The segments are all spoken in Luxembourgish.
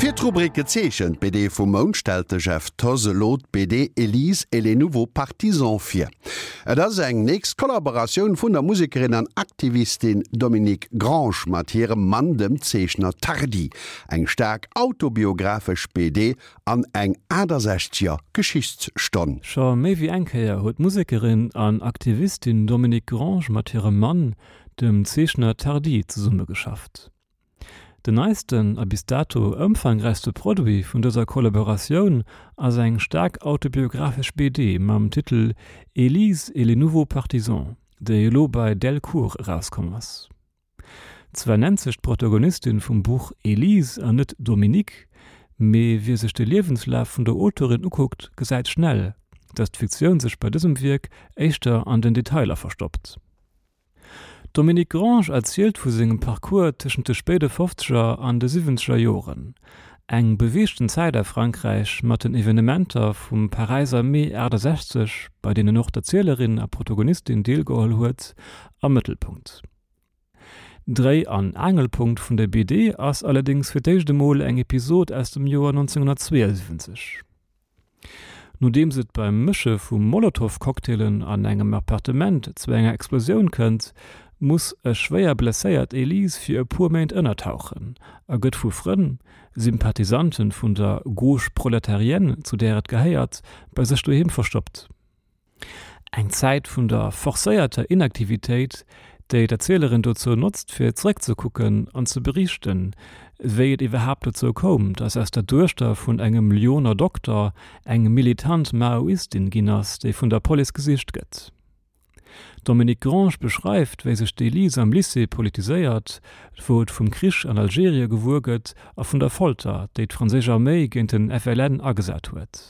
Fir d'Rubrik Gezeechent BD vum Mount stellt de Jeff Thoss elo d'BD Elise et les nouveaux partisans vir. Et ass eng nächst Kollaboratioun vun der Musekerin an Aktivistin Dominique Grange mat hirem Mann, dem Zeechner Tardi. Eng staark autobiographesch BD an eng 68er Geschichtsstonn. Scho méi wéi eng Kéier huet d'Musekerin an Aktivistin Dominique Grange mat hirem Mann, dem Zeechner Tardi, zesummegeschafft. Den neisten a bis dato ëmfangräichste Produit vun dëser Kollaboratioun ass eng staark autobiographesch BD mam Titel Élise et les nouveaux partisans, déi elo bei Delcourt erauskomm ass. Zwar nennt sech d'Protagonistin vum Buch Élise an net Dominique, mee wie sech de Liewenslaf vun der Auteurin ukuckt, gesäit schnell, datt d'Fiktioun sech bei dësem Wierk éischter an den Detailer verstoppt. D'Dominique Grange erzielt vu sengem Parcours tëschent de spéide Fofzeger an de Siwwenzeger Joren, eng beweegten Zäit a Frankräich mat den Evenementer vum Paräiser Mee 68, bei deenen och d'Erzielerin a Protagonistin deelgeholl huet, am Mëttelpunkt. Dréi an Aangelpunkt vun der BD ass allerdéngs fir d'éischt emol eng Episod aus dem Joer 1972. Nodeems et beim Mësche vu Molotow-Cocktailen an engem Appartement zu enger Explosioun kënnt, muss e schwéier blesséiert Elise fir e puer Méint ënnertauchen a gëtt vu Frënn, Sympathisante vun der Gauche prolétarienne, zu där et gehéiert, bei sech doheem verstoppt. Eng Zäit vun der forcéierter Inaktivitéit, déi d'Erzielerin dozou notzt, fir zeréckzekucken an ze beriichten, wéi et iwwerhaapt dozou koum, datt aus der Duechter vun engem Lyoner Dokter eng militant Maoistin ginn ass, déi vun der Police gesicht gëtt. D'Dominique Grange beschreift, wéi sech d'Elise am Lycée politiséiert, wou et vum Krich an Algerie gewuer gëtt a vun der Folter, déi d'franséisch Arméi géint den FLN agesat huet.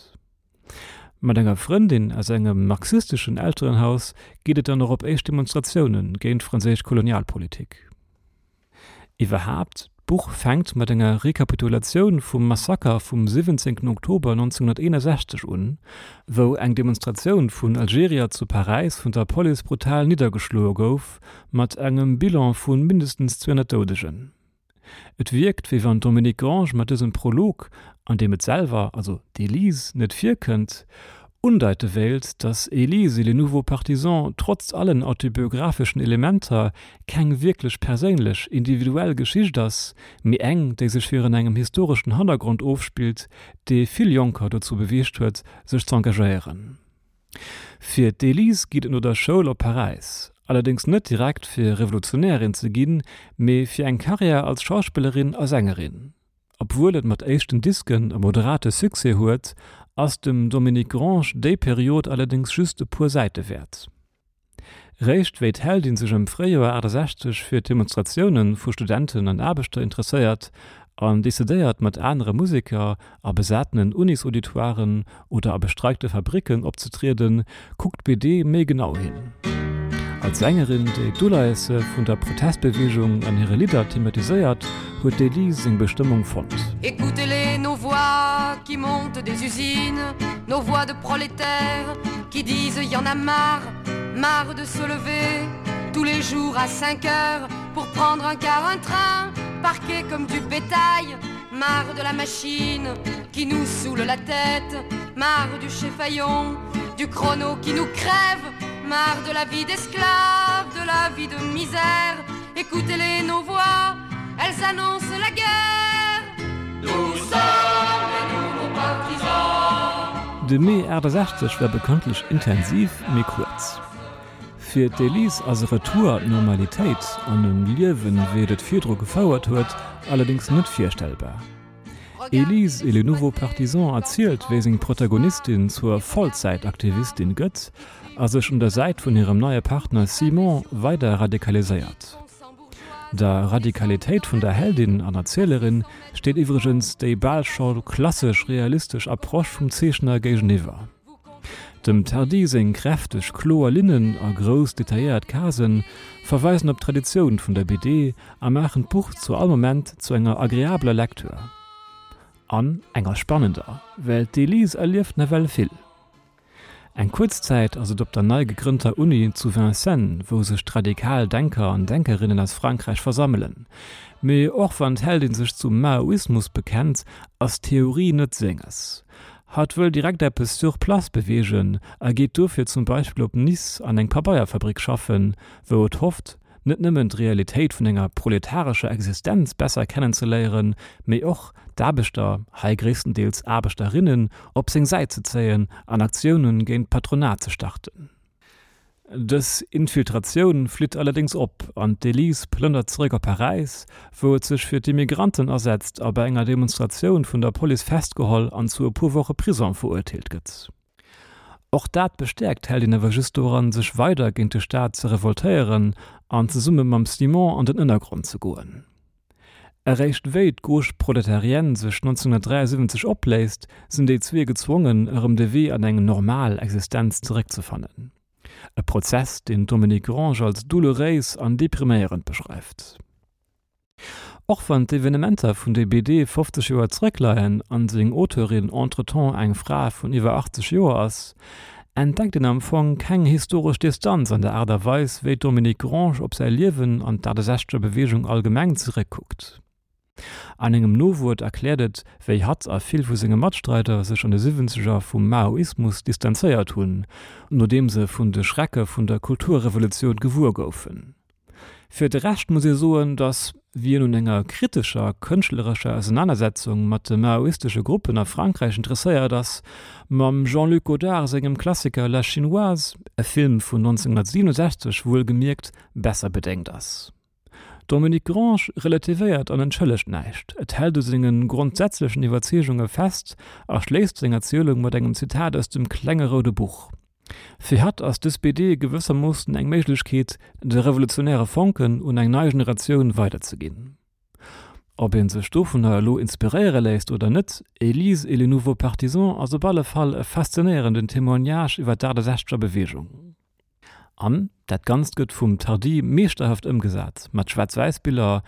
Mat enger Frëndin aus engem marxisteschen Elterenhaus geet et dann och op éischt Demonstratioune géint d'franséisch Kolonialpolitik. Iwwerhaapt, d'Buch fänkt mat enger Rekapitulatioun vum Massaker vum 17 Oktober 1961 un, wou eng Demonstratioun vun Algerier zu Paräis vun der Police brutal niddergeschloe gouf, mat engem Bilan vu mindestens 200 Doudegen. Et wierkt, wéi wann d'Dominique Grange mat dësem Prolog, an deem et selwer, also d'Elise, net virkënnt, undeite wéilt, datt Elise et les nouveaux partisans trotz allen autobiographeschen Elementer keng wierklech perséinlech, individuell Geschicht ass, mee eng, déi sech virun engem historeschen Hannergrond ofspillt, dee vill Jonker dozou beweegt huet, sech z'engagéieren. Fir d'Elise geet et no der Schoul op Paräis, allerdéngs net direkt fir Revolutionärin ze ginn, mee fir eng Karriär als Schauspillerin a Sängerin. Obwuel et mat éischten Disken e moderate Succès huet, ass dem Dominique Grange déi Period allerdéngs just e puer Säite wäert. Réischt wéi d'Heldin sech am Fréijoer 68 fir d'Demonstratioune vu Studenten an Aarbechter interesséiert an decidéiert mat anere Museker a besatenen Unisauditoiren oder a bestreikte Fabricken opzetrieden, kuckt d'BD méi genau hin. Als Sängerin, déi d'Uleiesse vun der Protestbeweegung an hire Lidder thematiséiert, huet d'Elise seng Bestëmmung fonnt. Écoutez-les nos voix qui montent des usines, nos voix de prolétaires qui disent y en a marre, marre de se lever tous les jours à 5 heures pour prendre un car, un train, parqué comme du bétail, marre de la machine qui nous saoule la tête, marre du chef-faillon, du chrono qui nous crève, marre de la vie d'esclave, de la vie de misère. Écoutez-les nos voix, elles annoncent la guerre. Nous sommes les nouveaux partisans. De Mee 68 war bekanntlech intensiv, mee kuerz. Fir d'Elise ass e Retour an d'Normalitéit an en Liewen, wéi et et virdru gefouert huet, allerdéngs net virstellbar. Elise et les nouveaux partisans erzielt, wéi seng Protagonistin zur Vollzäitaktivistin gëtt a sech un der Säit vun hirem neie Partner Simon weider radikaliséiert. Der Radikalitéit vun der Heldin an Erzielerin steet iwwregens déi bal scho klassesch realistesch Approche vum Zeechner géigeniwwer. Dem Tardi seng kräfteg, kloer Linnen a grouss, detailléiert Casen verweisen op d'Traditioun vun der BD a maachen d'Buch zu all Moment zu enger agreabeler Lecture. An enger spannender, well d'Elise erlieft nawell vill. Eng kuerz Zäit ass et op der nei gegrënnter Uni zu Vincennes, wou sech d'radikal Denker an Denkerinnen aus Frankräich versammelen. Mee och wann d'Heldin sech zum Maoismus bekennt, ass Theorie net senges. Hatt wëll direkt eppes sur place beweegen a geet dofir zum Beispill op Nice an eng Pabeierfabrik schaffen, wou et hofft, net nëmmen d'Realitéit vun enger proletarescher Existenz besser kennenzeléieren, mee och d'Aarbechter, hei gréisstendeels Aarbechterinnen, op seng Säit ze zéien an Aktioune géint d'Patronat ze starten. Dës Infiltratioun flitt allerdéngs op an d'Elise plënnert zeréck op Paräis, wou et sech fir d'Immigranten asetzt a bei enger Demonstratioun vun der Police festgeholl an zu e puer Woche Prison verurteelt gëtt. Och dat bestäerkt d'Heldin awer just doran, sech weider géint de Staat ze revoltéieren an zesumme mam Simon an den Ënnergrond ze goen. Eréischt wéi d'Gauche prolétarienne sech 1973 opléist, sinn déi zwee gezwongen, erëm de Wee an eng normal Existenz zeréckzefannen. E Prozess, deen d'Dominique Grange als doulouréis an depriméierend beschreift. Och wann d'Evenementer vun der BD 50 Joer zeréckleien an seng Auteurin entretemps eng Fra vun iwwer 80 Joer ass, entdeckt een am Fong keng historesch Distanz an der Aart a Weis, wéi d'Dominique Grange op säi Liewen an d'Achtesechzeger Beweegung allgemeng zeréckkuckt. An engem Nowuert erkläert et, wéi hatt a vill vu senge Matstreider sech an de Siwwenzeger vum Maoismus distanzéiert hunn, nodeem se vun de Schrecke vun der Kulturrevolutioun gewuer goufen. Fir de Rescht muss ee soen, datt wien un enger kritescher kënschtlerescher Ausenanersetzung mat de maoistesche Gruppen a Frankräich interesséiert ass, mam Jean-Luc Godard sengem Klassiker La Chinoise, e Film vun 1967 wuelgemierkt, besser bedéngt ass. D'Dominique Grange relativéiert an entschëllegt näischt, et hält u senge grondsätzlechen Iwwerzeegunge fest a schléisst seng Erzielung mat engem Zitat aus dem Klenge roude Buch. Fir hatt ass dës BD gewëssermoossen eng Méiglechkeet, de revolutionäre Fonken un eng nei Generatioun weiderzeginn. Ob ee sech dovunner elo inspiréiere léisst oder net, Élise et les nouveaux partisans ass op alle Fall e faszinéierenden Témoignage iwwer d'Achtesechzeger Beweegung. An dat Ganzt gëtt vum Tardi meeschterhaft ëmgesat, mat Schwaarz-Wäiss-Biller,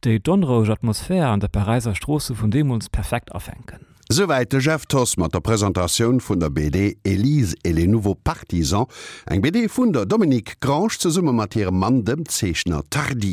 déi d'onroueg Atmosphär an der Paräiser Stroosse vun deemools perfekt afänken. Souwäit de Jeff Thoss mat der Presentatioun vun der BD Élise et les nouveaux partisans, eng BD vun der Dominique Grange zesumme mat hirem Mann, dem Zeechner Tardi.